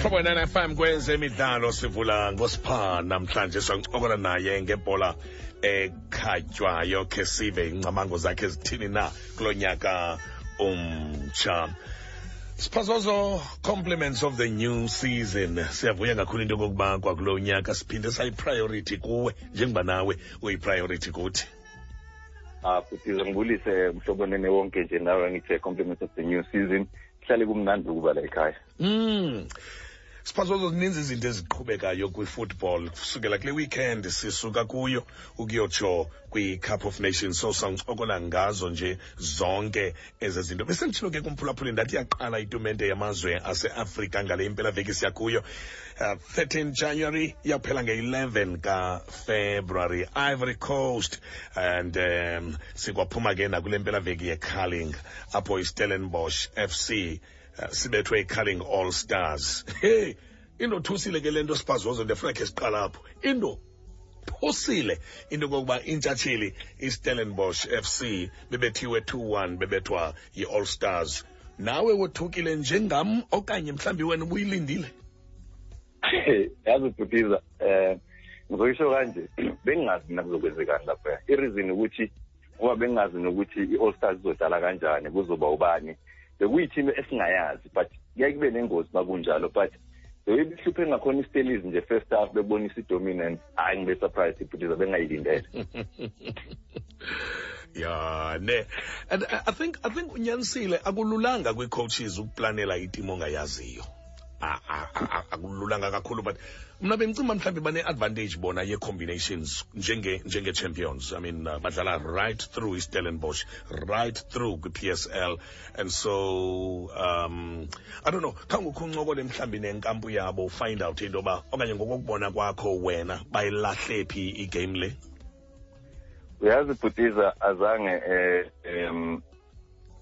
Mhlobo 9 FM kwezemidlalo, sivula ngosipha namhlanje, sancokola naye ngebhola ekhatywayo, khe sive ingcamango zakhe zithini na kulo nyaka umtsha. Siphazozo, compliments of the new season. Siyavuya kakhulu into yokokuba kwakulo nyaka siphinde sayi-priority kuwe njengoba nawe uyi-priority kuthi. Ah, futhi ngibulise mhlobo nene wonke nje, nawe ngithe compliments of the new season. Kuhlale kumnandi ukuba la ekhaya. Siphazozo, zininzi izinto eziqhubekayo kwi-football kusukela kule weekend sisuka kuyo ukuyotsho kwi-Cup of Nations, so sawuncokola ngazo nje zonke ezi zinto. Besenditshilo ke kumphulaphuli, ndathi yaqala itumente yamazwe aseAfrika ngale impelaveki siya kuyo, 13 January, iyaphela nge-11 kaFebruary, Ivory Coast, and sikwaphuma ke nakule mpelaveki yeCarling apho iStellenbosch FC sibethwe iCarling All Stars. Hey, indothusile ke le nto, Siphazozo, ndiyafuna khe siqala apho. Indothusile into yokokuba intshatsheli iStellenbosch FC bebethiwe 2-1, bebethwa yi-All Stars. Nawe wothukile njengam okanye mhlawumbi wena ubuyilindile? Yazi bhutiza, ngizoyisho kanje, bengingazi mina kuzokwenzekani lapha. I-reason ukuthi ngoba bengingazi nokuthi i-All Stars izodlala kanjani, kuzoba ubani, bekuyi-team esingayazi, but kuyaye kube nengozi makunjalo. But the way behluphe ngakhona iStellies nje first half, bebonisa i-dominance, hhayi, ngibe surprised ibhutiza, bengayilindele. Ya ne, and I think unyanisile, akululanga kwii-coaches ukuplanela itimu ongayaziyo. Akululanga kakhulu, but mna bendicinga mhlawumbi bane-advantage bona ye-combinations njenge-champions. I mean, badlala right through iStellenbosch, right through kwi-PSL, and so I don't know, khange ukho uncokole mhlawumbi nenkampu yabo, find out into yoba okanye ngokokubona kwakho wena bayilahle phi igame le? Uyazi bhutiza, azange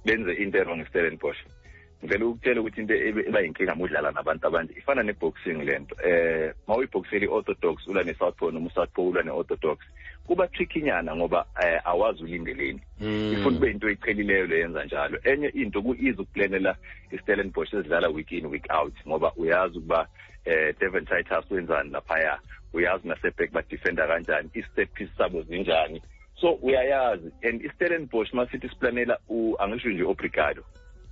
benze into e-wrong iStellenbosch. Ngivele ukutshela ukuthi into eba yinkinga uma udlala nabantu abanje ifana ne-boxing le nto. Ma uyibhoxela i-orthodox ulwa ne-southpaw, noma u-southpaw ulwa ne-orthodox, kuba trickynyana ngoba awazi ulindeleni. Ifuna kube into eyiqhelileyo le yenza njalo. Enye into, ku-easy ukuplanela iStellenbosch ezidlala week in, week out, ngoba uyazi ukuba Devon Titus wenzani laphaya, uyazi naseback badefenda kanjani, i-set piece sabo zinjani, so uyayazi. And iStellenbosch masithi siplanela, angisho nje obrigado,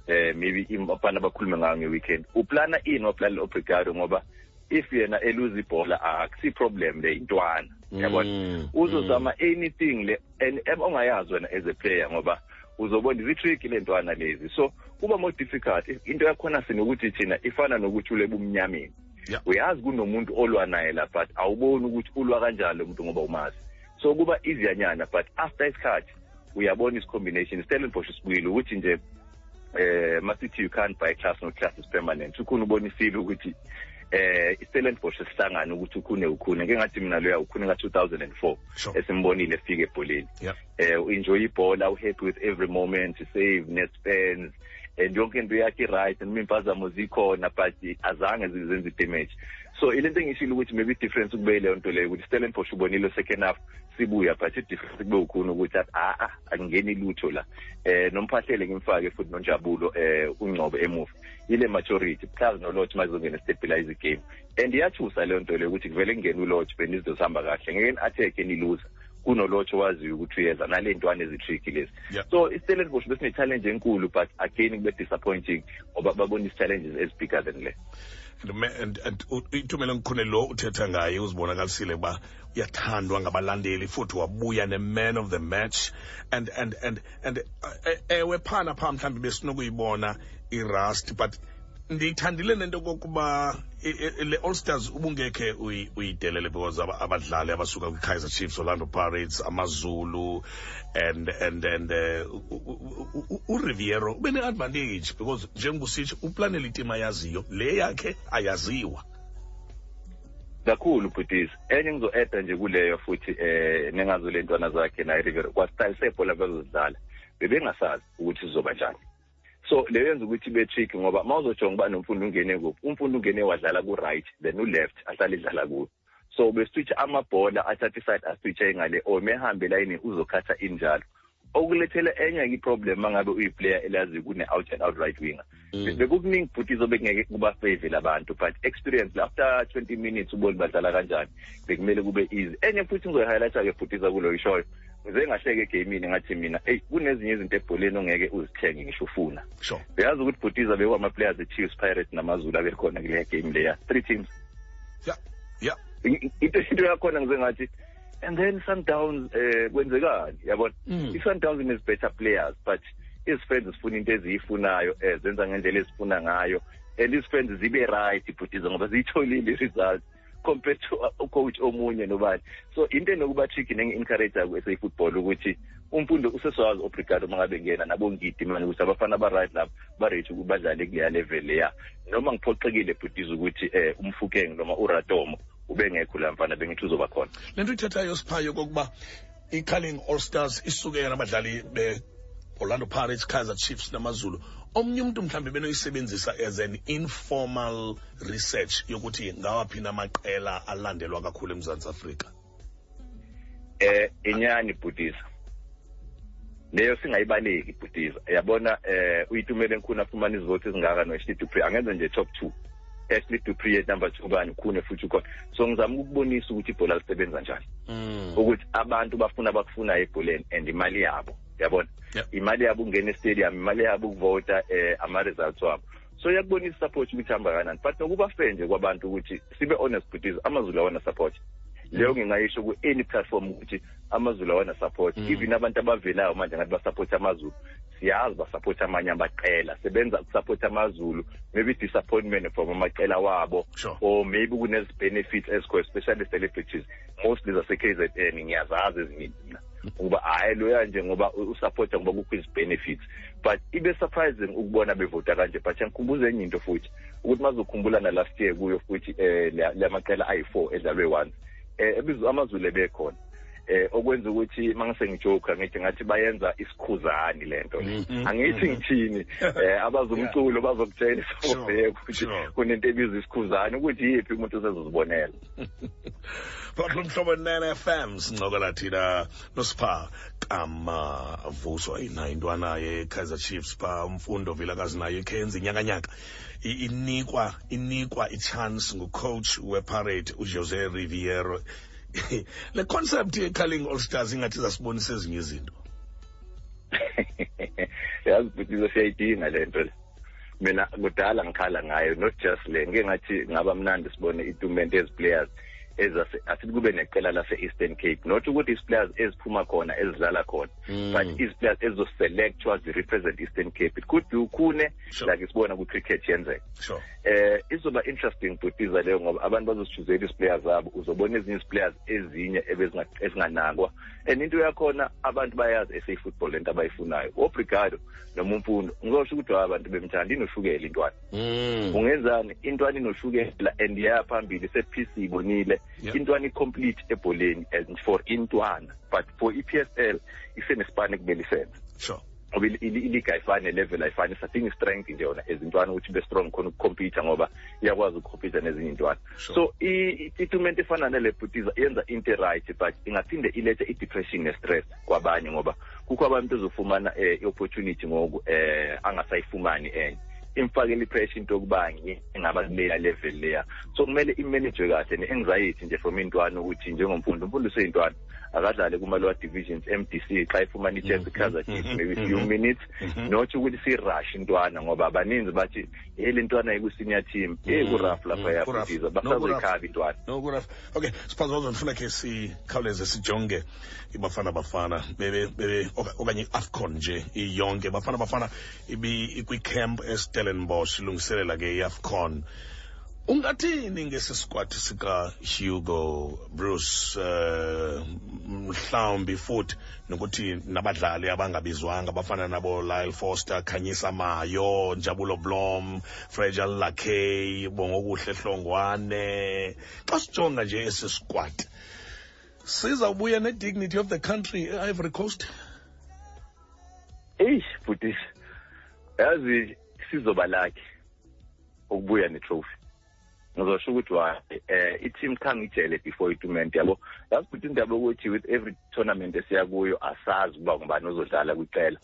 maybe abafana bakhulume ngayo nge-weekend, uplana ini, waplanela obrigado, ngoba if yena eluza ibhola akusi problem le, intwana yabona, uzozama anything le and ongayazi wena as a player, ngoba uzobona izi-trick le ntwana lezi, so kuba more difficult. Into yakhona sinokuthi thina ifana nokuthi ule bumnyameni, uyazi kunomuntu olwa naye la, but awuboni ukuthi ulwa kanjani lo muntu ngoba umazi, so kuba easyanyana. But after isikhathi uyabona isi-combination. Stellenbosch sibuyile ukuthi nje masithi you can't buy class, no class is permanent. Ukhona ubonisile ukuthi iStellenbosch sihlangana ukuthi ukhune ukhune ngeke ngathi mina loya ukhune ka-2004 esimbonile efika ebholeni, enjoy ibhola, uhappy with every moment, save net-spends and yonke into yakhe right, noma impazamo zikhona but azange zenze damage. So ilento engishilo ukuthi maybe difference kube leyo nto leyo, ukuthi Stellenbosch ubonile second half sibuya, but i-difference kube ukhona ukuthi athi a akungeni lutho la. Nomphahlele ngimfake futhi noNjabulo ungcobo emuva, ile maturity plus noLorch mazongena stabilize igame, and iyathusa leyo nto leyo ukuthi kuvele kungene uLorch, benizinto zihamba kahle, ngeke ni-attack eniluza kunoLorch owaziyo ukuthi uyeza nale ntwana ezi-tricky lezi. So iStellenbosch besine-challenge enkulu, but again kube disappointing ngoba babona isi-challenges ezi-bigger than le. And Itumeleng Khune lo uthetha ngaye uzibonakalisile uba uyathandwa ngabalandeli, futhi wabuya ne-man of the match, and ewe, phana phaa mhlawumbi besinokuyibona i-rust, but ndiyithandile nento kokuba le All Stars ubungekhe uyidelele, because abadlali abasuka kwi-Kaizer Chiefs, Orlando Pirates, AmaZulu and uRiviero ube ne-advantage because njengoba usitsho uplanele itim ayaziyo, le yakhe ayaziwa. Kakhulu bhutis. Enye ngizo-eda nje kuleyo futhi, nengazo le ntwana zakhe naye Riviero kwa-style sebhola bezozidlala, bebengasazi ukuthi sizoba njani, so leyo yenza ukuthi ibe tricky, ngoba uma uzojonga uba noMfundo ungene kuphi, uMfundo ungene wadlala ku-right, then u-left ahlale idlala kuyo, so beswitch amabhola, athathe iside aswitche ngale, or mehambe layini uzokhatha injalo. Okulethela enye i-problem mangabe uyi-player elazi kune-out and out right winger. Bekukuningi futhi izobe kungeke kuba-favor labantu, but experience after 20 minutes ubone badlala kanjani, bekumele kube easy. Enye futhi ngizoyi-highlighta-ke futhi kulo ishoyo, ngize ngahleke egamini, ngathi mina, eyi, kunezinye izinto ebholeni ongeke uzithenge ngisho ufuna. Uyazi ukuthi, bhutiza, bekwama-players e-Chiefs, Pirates namaZulu abekhona kuleya game leya, three teams. Into yakhona ngize ngathi, and then Sundowns, kwenzekani, yabona? I-Sundowns ines better players, but izifans zifuna into eziyifunayo, zenza ngendlela ezifuna ngayo, and izifans zibe right, bhutiza, ngoba ziyitholile i-result compared to ucoach omunye nobani. So into enokuba tricky, nengi-encourage ku-SA football ukuthi uMfundo usesowazi obrigado uma ngabe ngena nabongidi manje ukuthi abafana aba-right lapho ba-ready ukuthi badlale kuleya level leya. Noma ngiphoxekile, bhutiza, ukuthi uMofokeng noma uRatomo ubengekho la mfana, bengithi uzoba khona. Le nto ithethayo, Siphayo, kokuba i-Carling All Stars isuke nabadlali be-Orlando Pirates, Kaizer Chiefs namaZulu, omnye umntu mhlawumbi benoyisebenzisa as an informal research yokuthi ngawaphi namaqela alandelwa kakhulu eMzantsi Afrika. Inyani, bhutiza, leyo singayibaleki, bhutiza. Yabona, uYitumeleng Khune afumana izivoti ezingaka no-Ashley Du Preez, angenza nje top two, Ashley Du Preez number two, bani, Khune futhi ukhona. So ngizama ukukubonisa ukuthi ibhola lisebenza njani, ukuthi abantu bafuna abakufunayo ebholeni and imali yabo, yabona? Imali yabo ukungena estadium, imali yabo ukuvota, ama-results wabo. So iyakubonisa support ukuthi hamba kanani, but nokuba fair nje kwabantu ukuthi sibe honest, bhutiza, amaZulu awana support leyo. Ngingayisho ku-any platform ukuthi amaZulu awana support. Even abantu abavelayo manje ngathi basupport amaZulu, siyazi basupport amanye amaqela, sebenza ukusupport amaZulu, maybe disappointment from amaqela wabo, or maybe kunezi-benefits ezikho, especially celebrities mostly zase-KZN. Ngiyazazi ezinye mina ukuba hhayi loya nje ngoba usupporta ngoba kukho izi-benefits, but ibe surprising ukubona bevota kanje. But ngikhumbuza enye into futhi ukuthi mazokhumbula na last year kuyo futhi lamaqela ayi-4 edlalwe once, ebizwa amaZulu ebekhona, okwenza ukuthi mangase ngijoke ngithi ngathi bayenza isikhuzani lento le. Angithi ngithini, abazumculo bazokutshela isofeke ukuthi kunento ebizwa isikhuzani, ukuthi yiphi, umuntu usezozibonela. Phakathi Mhlobo 9 FM, sincokola thina noSipha Kamavuso. Ayinayo intwana ye-Kaizer Chiefs pha, uMfundo Vilakazi, nayo ikhenza inyakanyaka, inikwa i-chance ngucoach wePirate uJose Riviero. Le concept ye-Carling All Stars ingathi zasibonisa ezinye izinto. Yazi bhutizo, siyayidinga le nto le. Mina kudala ngikhala ngayo, not just le. Ngike ngathi ngaba mnandi sibone itumente ezi-players ezase, asithi kube neqela lase-Eastern Cape, not ukuthi isi-players eziphuma khona ezidlala khona, but izi-players ezizoselectwa zi-represent Eastern Cape. It could be uKhune, like sibona kwi-cricket yenzeka. Izoba interesting, bhutiza, leyo, ngoba abantu bazosichuzela isi-players zabo, uzobona ezinye isi-players ezinye ezinganakwa. And into yakhona, abantu bayazi SA football lento abayifunayo. Obrigado noma uMfundo, ngizosho ukuthi abantu bemthanda, inoshukela intwana. Ungenzani, intwana inoshukela and iya phambili, set piece ibonile. Intwana i-complete ebholeni and for intwana, but for i-PSL isenesipani ekumele isenze, ngoba iliga ayifani, level ayifani. Sadinga i-strength nje yona ezintwana ukuthi be strong khona ukucompete, ngoba iyakwazi ukucompete nezinye intwana. So itumente efana nale, bhutiza, yenza into right, but ingaphinde ilethe i-depression ne-stress kwabanye, ngoba kukho abantu ezofumana i-opportunity ngoku angasayifumani enye, imfakele i-pressure into yokuba ngingaba kuleya level leya. So kumele imanage kahle ne-anxiety nje from intwana, ukuthi njengoMfundo, uMfundo useyintwana, akadlale kuma-lower divisions, MDC, xa ifumana i-chance, Kaizer Chiefs, maybe few minutes, not ukuthi si-rush intwana, ngoba abaninzi bathi hey, le ntwana iku-senior team, hey, ku-rough lapha, yabhutiza, basazoyikhaba intwana. No, ku-rough. Okay, siphazozo, ndifuna khe sikhawuleze sijonge iBafana Bafana bebe bebe okanye i-AFCON nje iyonke. Bafana Bafana ibi ikwi-camp eStellenbosch, ilungiselela ke i-AFCON. Ungathini ngesi squad sika Hugo Broos, mhlawumbi futhi nokuthi nabadlali abangabizwanga abafana nabo Lyle Foster, Khanyisa Mayo, Njabulo Blom, Fragile Lakay, Bongokuhle Hlongwane? Xa sijonga nje esi squad, sizawubuya ne-dignity of the country e-Ivory Coast? Eish bhutisi, yazi sizoba lucky ukubuya ne-trophy. Ngizosho ukuthi why i-team khange ijele before i-tournament, yabo. Yazi futhi indaba yokuthi with every tournament esiya kuyo asazi ukuba ngubani ozodlala kwicela.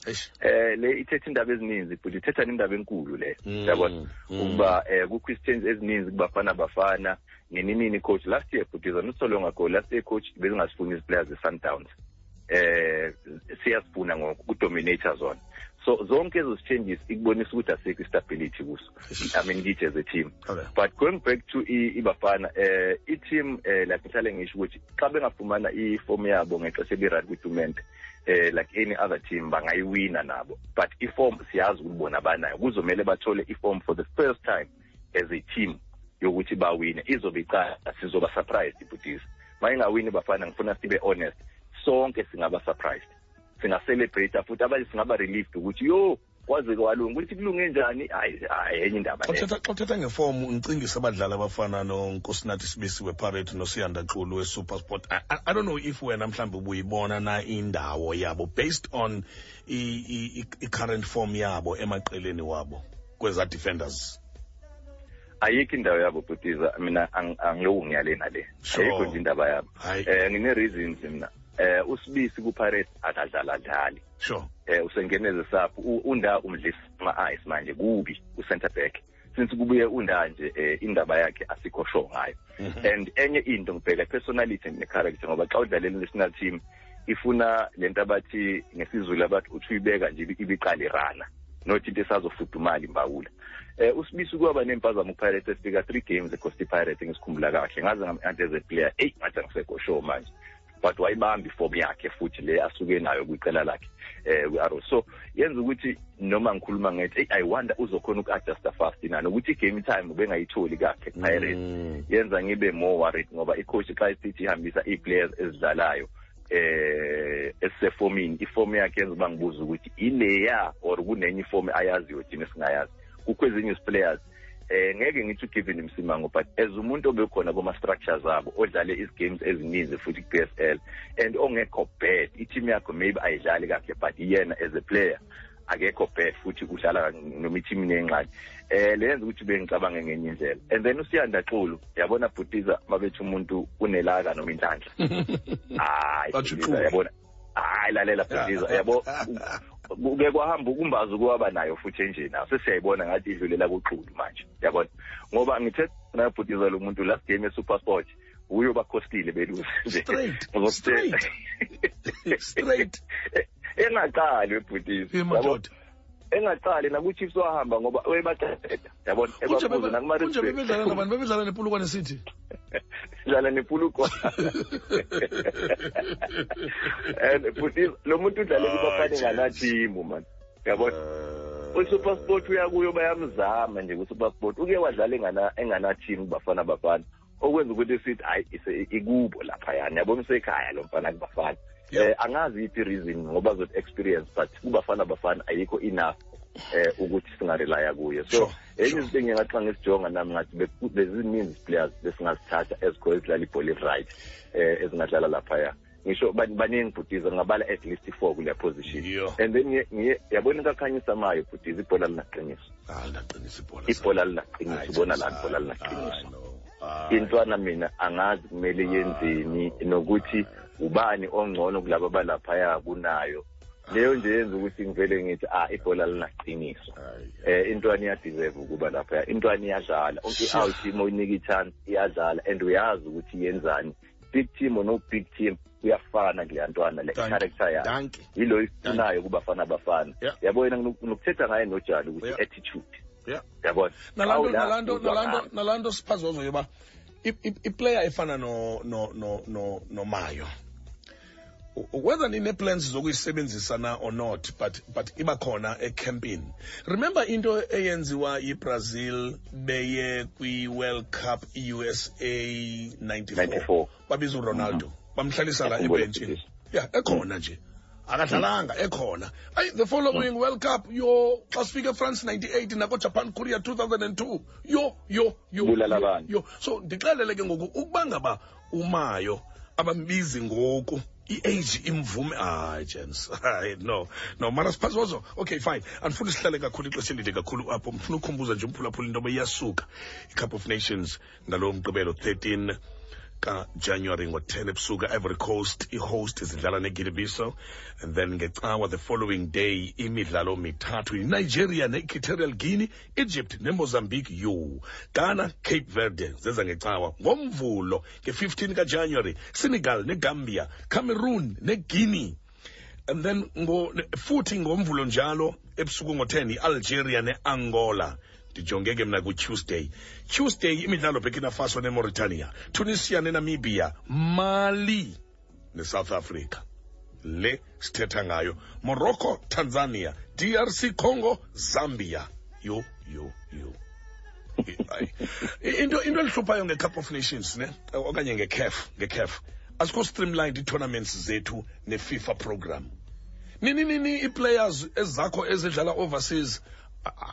Le ithetha indaba ezininzi, but ithetha nendaba enkulu le, yabona, ukuba kukho isichange ezininzi kubafana bafana nini nini. Coach last year, but not so long ago, last year coach bezingasifuni izi-players ze-Sundowns, siyazifuna ngoku kudominate zona. So zonke ezo changes ikubonisa ukuthi asikho i-stability kuso, I mean, kithi as a team. But going back to iBafana, i-team, like ngihlale ngisho ukuthi xa bengafumana i-form yabo ngexesha eli-right kwi-tournament, like any other team bangayiwina nabo, but i-form siyazi ukuthi bona banayo. Kuzomele bathole i-form for the first time as a team yokuthi bawine. Izobe iqala, sizoba surprised ibhutisi mayingawini Bafana. Ngifuna sibe honest, sonke singaba surprised, singa-celebrate futhi abanye singaba relieved ukuthi yo, kwaze kwalunga. Ukuthi kulunge njani, hayi hayi, enye indaba leyo. Xa uthetha ngefomu, ngicingisa abadlali abafana noNkosinathi Sibisi wePirates noSiyanda Xulu weSuperSport. I don't know if wena mhlawumbi ubuyibona na indawo yabo based on i-current form yabo emaqeleni wabo kweza defenders. Ayikho indawo yabo, bhutiza. Mina angiloku ngiyale nale. Ayikho nje indaba yabo. Ngine-reasons mina. USibisi kuPirates akadlala dlali. Usengeneze sapho unda umdlisa ama-ice manje kubi u-center back since kubuye unda nje, indaba yakhe asikho sure ngayo. And enye into ngibheka personality ne-character, ngoba xa udlalela i-national team ifuna lento abathi ngesiZulu abathi uthi uyibeka nje ibiqala irana, not into esazofudumala imbawula. USibisi kwaba nempazamo kuPirates, efika 3 games eCosta Pirates, ngisikhumbula kahle, ngaze ngam as a player, eyi, ngathi angisekho sure manje, but wayibamba iform yakhe futhi le asuke nayo kwicela lakhe kwi-Arrow. So yenza ukuthi noma ngikhuluma ngethi, hey, I wonder uzokhona uku-adjusta fast na, nokuthi i-game time ubengayitholi kahle ku-Pirates, yenza ngibe more worried, ngoba i-coach xa isithi ihambisa ii-players ezidlalayo esisefomini, iform yakhe yenza uba ngibuza ukuthi ileya or kunenye iform ayaziyo thina esingayazi. Kukho ezinye players, ngeke ngithi uGiven Msimango, but as umuntu obekhona kuma structures abo, odlale izi-games ezininzi futhi ku-PSL and ongekho bad, i-team yakho maybe ayidlali kahle, but yena as a player akekho bad futhi udlala noma i-team inengxaki, leyenza ukuthi bengicabange ngenye indlela. And then uSiyanda Xulu, yabona bhutiza, mabethi umuntu unelaka noma inhlanhla, hayi, yabona, hayi, lalela bhutiza, yabo, kuke kwahamba ukumbaza ukuwaba nayo futhi enjena sesiyayibona ngathi idlulela kuXulu manje, yabona, ngoba ngithe nayabhutiza lo muntu last game eSuperSport uyo bakhostile belusi. Straight straight straight. Engaqali webhutisi, yabo, engaqali naku-Chiefs wahamba ngoba webaqeda, yabona. Ebabuza nakuma-. Bebedlala nabani? Bebedlala nePolokwane City. Dlala nePolokwane, and futhi lo muntu udlale kuBafana ngana-team man, yabona. USuperSport uyakuyo, bayamzama nje kuSuperSport, uke wadlala engana-team kuBafana Bafana, okwenza ukuthi sithi hayi, ikubo laphayana, yabona, usekhaya lo mfana kuBafana. Angazi iphi reason, ngoba zothi experience, but kuBafana Bafana ayikho enough ukuthi singarelya kuye. So enye izinto engingathi xa ngisijonga nami ngathi bezininzi players besingazithatha ezikho ezidlala ibhola i-right, ezingadlala laphaya. Ngisho baningi bhutiza, ngingabala at least four kule position. And then ngiye yabona into akhanyisa mayo bhutiza, ibhola linaqiniso. Linaqiniso ibhola. Ibhola linaqiniso, ubona lana, ibhola linaqiniso. Intwana mina angazi kumele yenzeni, nokuthi ubani ongcono kulabo abalaphaya kunayo. Leyo nje yenza ukuthi ngivele ngithi, ah, ibhola linaqiniso. Intwana iyadeserve ukuba lapha, intwana iyadlala i-out, uma uyinika i-chance iyadlala and uyazi ukuthi yenzani, big team or no big team, kuyafana kuleya ntwana le, character yakhe yilo ifunayo kubafana bafana, yabo. Yena nokuthetha ngaye nojali ukuthi attitude, yabona. Nalanto siphazozo yoba iplayer efana no no no no noMayo, whether nine-plans zokuyisebenzisa na or not, but iba khona ecampini. Remember into eyenziwa yiBrazil beye kwi-World Cup USA 94? 94. Babiza uRonaldo, bamhlalisa la ebhentshini ya, ekhona nje akadlalanga, ekhona. Ayi, the following World Cup yo, xa sifika eFrance 98 nakoJapan, Korea 2002, yo yo yo. Bulala abantu. Yo, so ndixelele ke ngoku ukuba ngaba uMayo abambizi ngoku. I-age imvume. Hayi, gents, hayi, no, no, mara Siphazozo. Okay, fine, andifuni sihlale kakhulu ixesha elide kakhulu apho. Ndifuna ukhumbuza nje umphulaphula into yoba iyasuka i-Cup of Nations ngalo Mgqibelo 13 kaJanuary ngo-10 ebusuku, Ivory Coast i-host zidlala neGuinea-Bissau, and then ngeCawa the following day imidlalo mithathu: Nigeria ne-Equatorial Guinea, Egypt neMozambique, yo Ghana, Cape Verde zeza ngeCawa. NgoMvulo nge-15 kaJanuary, Senegal neGambia, Cameroon neGuinea, and then futhi ngoMvulo njalo ebusuku ngo-10 i-Algeria ne-Angola. Ndijonge ke mna kuTuesday, Tuesday imidlalo: Burkina Faso neMauritania, Tunisia neNamibia, Mali neSouth Africa le sithetha ngayo, Morocco, Tanzania, DRC Congo, Zambia. Yho, yho, yho. Into elihluphayo nge-Cup of Nations ne okanye nge-CAF, asikho streamlined ii-tournaments zethu ne-FIFA program. Nini nini ii-players ezakho ezidlala overseas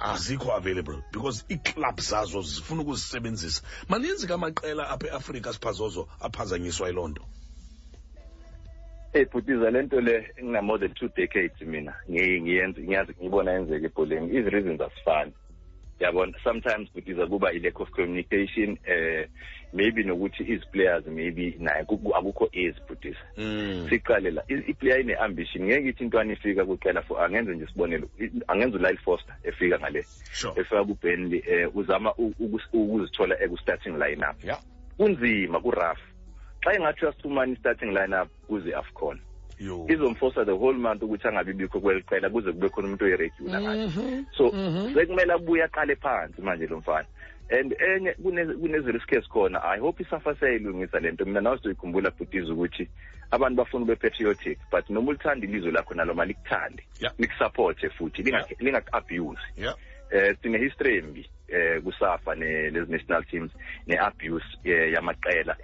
azikho available because ii-club zazo zifuna ukuzisebenzisa. Maninzi kamaqela apha eAfrika, Siphazozo, aphazanyiswa yiloo nto. Hey bhutiza, le nto le ngina more than 2 decades mina ngiyenza, ngiyazi, ngibona yenzeka ebholeni. Izi-reasons asifani, yabona. Sometimes, bhutiza, kuba i-lack of communication, maybe nokuthi izi-players maybe naye akukho easy, bhutiza. Siqale la, i-player ine-ambition. Ngeke ithi intwana ifika kuqela for, angenze nje isibonelo, angenze uLyle Foster efika ngale, efika kuBurnley, uzama ukuzithola eku-starting lineup. Kunzima, ku-rough. Xa engathi uyasifumana i-starting lineup kuze AFCON, izomforsa the whole month ukuthi angabi bikho kweli qela kuze kube khona umuntu oyi-regular ngathi. So sekumele abuye aqale phansi manje lo mfana. And enye kunezi-risk ezikhona. I hope iSAFA siyayilungisa le nto. Mina nawe sizoyikhumbula, bhutiza, ukuthi abantu bafuna ube patriotic, but noma ulithanda ilizwe lakho nalo malikuthande, likusupporte futhi, lingaku-abuse. Sine history embi kuSAFA ne lezi national teams ne-abuse yamaqela.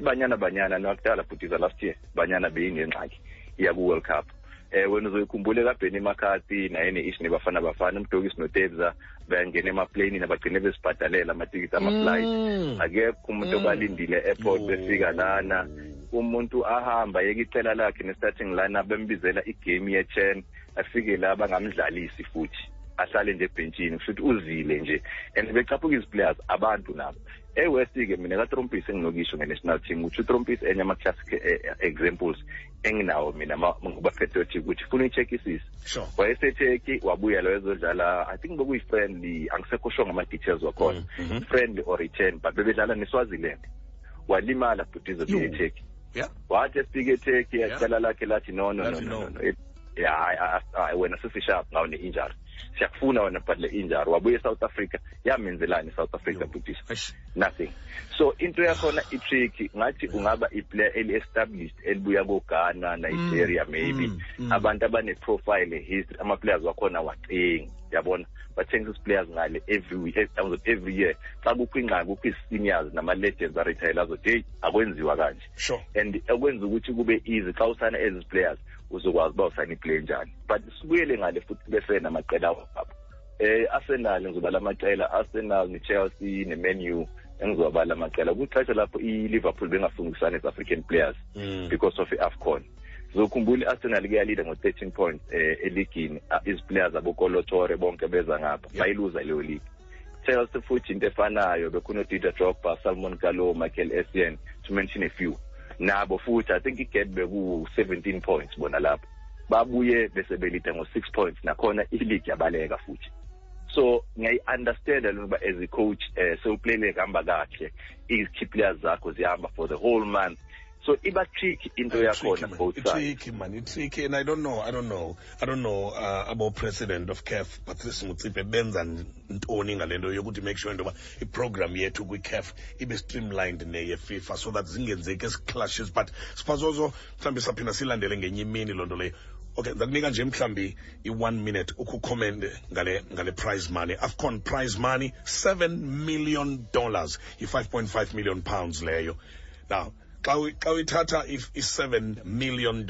Banyana Banyana nakudala, bhutiza, last year Banyana beyinengxaki iya ku-World Cup. Wena uzoyikhumbula kaBenny McCarthy naye ne-issue neBafana Bafana, uMdokisi noTebza bangena emaplanini, abagcine besibhadalela amatikiti ama-flight. Akekho umuntu obalindile e-airport. Yo. Befika lana, umuntu ahamba yeke icela lakhe ne-starting lineup, bembizela igame ye-CHAN, afike la bangamdlalisi futhi ahlale nje ebhentshini, kusho ukuthi uzile nje and becaphuka izi-players abantu nabo. E-West-ke mina kaTrompis enginokisho nge-national team ukuthi uTrompis enye ama-classic examples enginawo mina ngoba patriotic ukuthi funa uyi-checkisise. WayeseTurkey, wabuya lo ezodlala, I think bekuyi-friendly, angisekho sure ngama-details wakhona, friendly or return, but bebedlala neSwaziland, walimala, bhutizo, Yo. eTurkey. Wathi efika eTurkey, yacala lakhe lathi no, no, no, Lathi no, no. no, no. Yeah, hayi, hayi, wena sesishap ngawo ne-injury, siyakufuna wena, but le injury. Wabuya eSouth Africa, yamenzelani iSouth Africa, Yo. bhutisa? Eish. Nothing. So into yakhona i-tricky. Ngathi ungaba i-player eli-established elibuya ko-Ghana, Nigeria, maybe abantu abane-profile, history, ama-players wakhona wacingi, yabona, bathengisa isi-players ngale every week, every year. Xa kukho ingxaki, kukho ii-seniors nama-legends aretire azothi heyi, akwenziwa kanje. And okwenza ukuthi kube easy xa usayina ezi players, uzokwazi uba usayina iplayer njani. But sibuyele ngale futhi, kube fair namaqela wabo. Arsenal, ngizobala amaqela, Arsenal ne-Chelsea ne-Man U, engizowabala amaqela kwixesha lapho i-Liverpool bengafungisani ezi-African players because of i-AFCON. Zokhumbula i-Arsenal kuyalida ngo-13 points eligini, izi-players aboKolo Toure bonke beza ngapha, bayiluza leyo league. Chelsea futhi into efanayo, bekhuno Didier Drogba, Salomon Kalou, Michael Essien, to mention a few. Nabo futhi I think igap beku 17 points bona lapho, babuye bese belida ngo-6 points, nakhona i-league yabaleka futhi. So ngiyayi-understanda lento uba as a coach sewuplayile kuhamba kahle, i-key players zakho zihamba for the whole month, so iba tricky into yakhona both sides. Tricky, man, it's tricky, and I don't know abo president of CAF Patrice Motsepe benza ntoni ngale nto yokuthi make sure into yoba iprogram yethu kwi-CAF ibe streamlined neye FIFA so that zingenzeki ezi clashes. But Siphazozo, mhlawumbi saphinda silandele ngenye imini loo nto leyo. Okay, ndakunika nje mhlawumbi i-one minute ukukhomente ngale prize money, AFCON prize money, $7 million, yi-£5.5 million leyo. Now xa uyithatha i-$7 million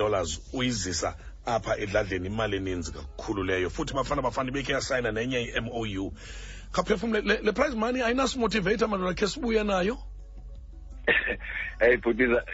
uyizisa apha edladleni, imali eninzi kakhulu leyo. Futhi Bafana Bafana ibekhe yasayina nenye i-MOU. Khaphefumle, le prize money ayinasimotivate, madoda, khe sibuye nayo. Hey bhutiza,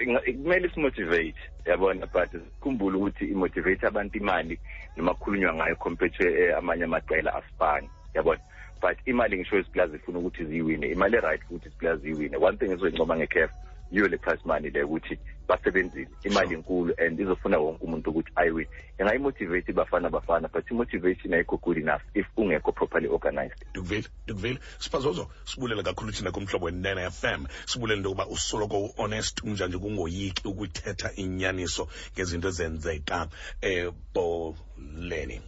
kumele simotivate, yabona, but sikhumbule ukuthi imotivate abantu imali noma kukhulunywa ngayo compared to amanye amaqela asifani, yabona. But imali, ngisho iziplayer zifuna ukuthi ziyiwine imali e-right, futhi iziplayer ziyiwine. One thing ezoyincoma nge-CAF yiyo le prize money le, ukuthi basebenzile, imali inkulu and izofuna wonke umuntu ukuthi ayiwine. Ingayimotivate Bafana Bafana, but i-motivation ayikho good enough if ungekho properly organized. Ndikuvile, ndikuvile, Siphazozo. Sibulela kakhulu thina kuMhlobo Wenene FM. Sibulela into yokuba usoloko u-honest unjanje, kungoyiki ukuthetha inyaniso ngezinto ezenzeka ebholeni.